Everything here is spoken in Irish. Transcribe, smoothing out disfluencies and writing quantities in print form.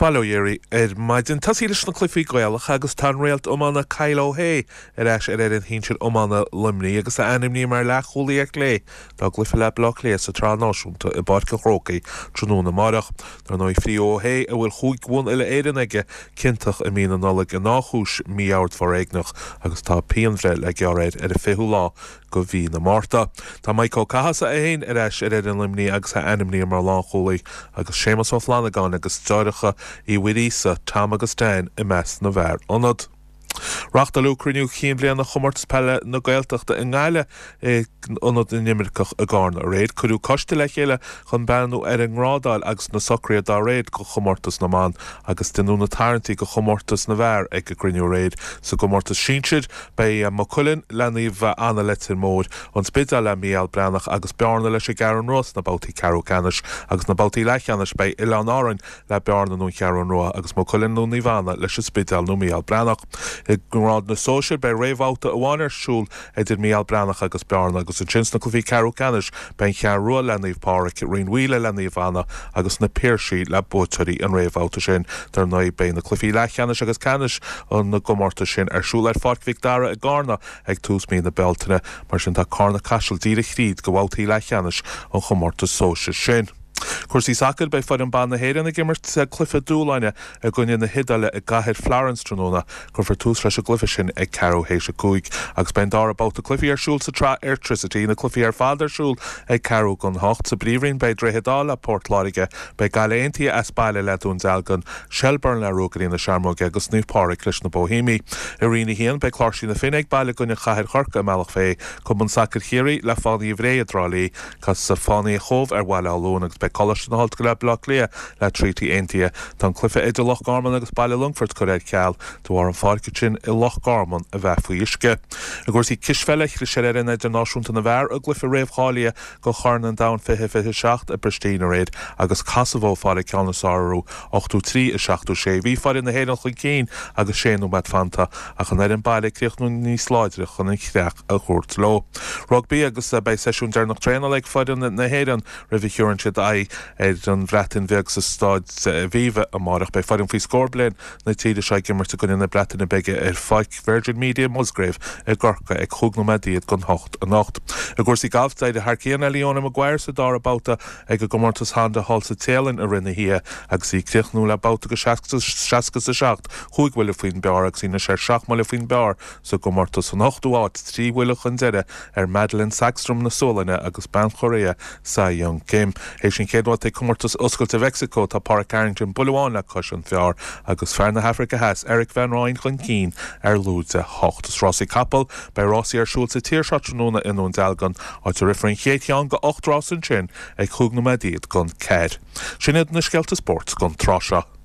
Bail ó Dhia oraibh ar maidin. Tosaí leis na cluichí Gaelacha agus tá an réalt iomána Kyle O'Hea ar ais ar fhoireann shinsir iomána Luimnigh agus é ainmnithe mar leathchúlaí ar chlé dá gcluiche le Baile Átha Cliath sa tSraith Náisiúnta i bPáirc an Chrócaigh tráthnóna amárach. Dar ndóigh frítheadh O'Hea, a bhfuil chúig bhonn uile-Éireann aige, ciontach i mí na Nollag i ndá chúis mí-ord foréigneach agus tá pianbhreith le gearradh air ar an 20ú lá go mhí na Márta. Tá Mike Ó Cathasaigh é féin ar ais ar fhoireann Luimnigh agus é ainmnithe mar lánchúlaí agus Séamus Ó Flannagáin agus deartháireacha Uí Mhuiríosa, Tom agus Dan i measc na bhfear ionad. Reáchtáladh cruinniú cinn bhliana Chomórtas Peile na Gaeltachta i nGaillimh i Ionad na nImirceach i gCarna aréir. Cuireadh coiste le chéile chun breathnú ar an ngrádáil agus na socruithe dá réir do chomórtas na mban agus deineadh na tarraingtí do chomórtas na bhfear ag an gcruinniú aréir. Sa gcomórtas sinsir, Beidh Maigh Cuilinn le Naomh Anna Leitir Móir, An Spidéal le Mícheál Breathnach agus Bearna leis an gCeathrú Rua sna babhtaí ceathrú ceannais agus sna babhtaí leathcheannais beidh Oileáin Árainn le Bearna nó an Cheathrú Rua agus Maigh Cuilinn nó Naomh Anna leis an Spidéal nó Mícheál Breathnach. I ngrád na sóisear beidh réamhbhabhta amháin ar siúl idir Mícheál Breathnach agus Bearna agus ansin sna cluichí ceathrú ceannais beidh An Cheathrú Rua le Naomh Pádraig, Rinn Mhaoile le Naomh Anna agus Na Piarsaigh le buaiteoirí an réamhbhabhta sin. Dar ndóigh beidh na cluichí leathcheannais agus ceannais na gcomórtas sin ar siúl ar Pháirc Mhic Dara i gCarna ag tús mí na Bealtaine. Mar sin tá Carna Caiseal díreach thríd go bhabhtaí leathcheannais an chomórtais sóisir sin. Cúrsaí sacair, Beidh foireann ban na hÉireann ag imirt cluiche dúshláin i gcoinne na hIodáile i gcathair Florence tráthnóna. Cuirfear tús leis an gcluiche sin ag ceathrú théis a 5 agus beidh an dara babhta cluichí ar siúl sa tsraith Airtricity, na cluichí ar fad ar siúl ag ceathrú don hocht. Sa bPríomhroinn beidh Droichead Átha le Port Láirge, beidh Gaillimh Aontaithe as baile le Dún Dealgan, Shelbourne le Ruagairí na Searmóige agus Naomh Pádraig leis na Boihéamaigh. I Roinn 1, beidh Cláirsigh na Finne ag baile i gcoinne Chathair Chorcaí i mBealach Féich, Cumann Sacair Chiarraí le Fánaithe Bhré i dTrá Lí, Casfaidh Fánaithe Chóbh ar Bhaile Átha Luain agus beidh Coláiste na hOllscoile Baile Átha Cliath le Treaty Aontaithe. Tá an cluiche idir Loch Garman agus Baile Longfoirt curtha ar ceal de bharr an pháirc ansin i Loch Garman a bheith faoi uisce. I gcúrsaí cispheile, chlis ar fhoireann idirnáisiúnta na bhfear i gcluiche réamhcháilithe do Chorn an Domhain 2027 i bPristina aréir agus Cosavó ag fáil an ceann is fearr orthu, 83, 76. Bhí foireann na hÉireann chun cinn agus sé nóiméad fanta ach an fhoireann baile ag críochnú níos láidre chun an chreach a thabhairt leo. Rugbaí agus beidh seisiún deireanach traenála ag foireann na hÉireann roimh a thiúrann siad aghaidh ar an Bhreatain Bheag sa Staid Aviva amárach. Beidh foireann faoi scór bliain na tíre seo ag imirt i gcoinne na Breataine Bige ar Pháirc Virgin Media Musgrave i gCorcaigh ag chúig nóiméad don hocht anocht. I gcúrsaí gailf, d'éirigh thar cionn le Leona Maguire sa dara babhta ag an gcomórtas Honda thall sa Téalainn i rith na hoíche agus í ag críochnú le babhta de 67, chúig bhuille faoin bpar agus í anois ar seacht mbuille faoin bpar sa gcomórtas. San ochtú háit, trí bhuille chun deiridh ar Madelene Sagstrom na Sualainne agus bean Chóiréa Sei Young Kim. Théis an chéad bhabhta ag Comórtas Oscailte Mheicsiceo, tá Pádraig Harrington buille amháin le cois an phar agus fear na hAfraice Theas, Erik van Rooyen chun cinn ar lúide 8. Is rásaí capall, beidh rásaí ar siúl sa tír seo tráthnóna i nDún Dealgan, áit a rithfear an chéad cheann de 8 rás ansin ag chúig nóiméad don ceathair. Sin iad na scéalta spóirt don tráth seo.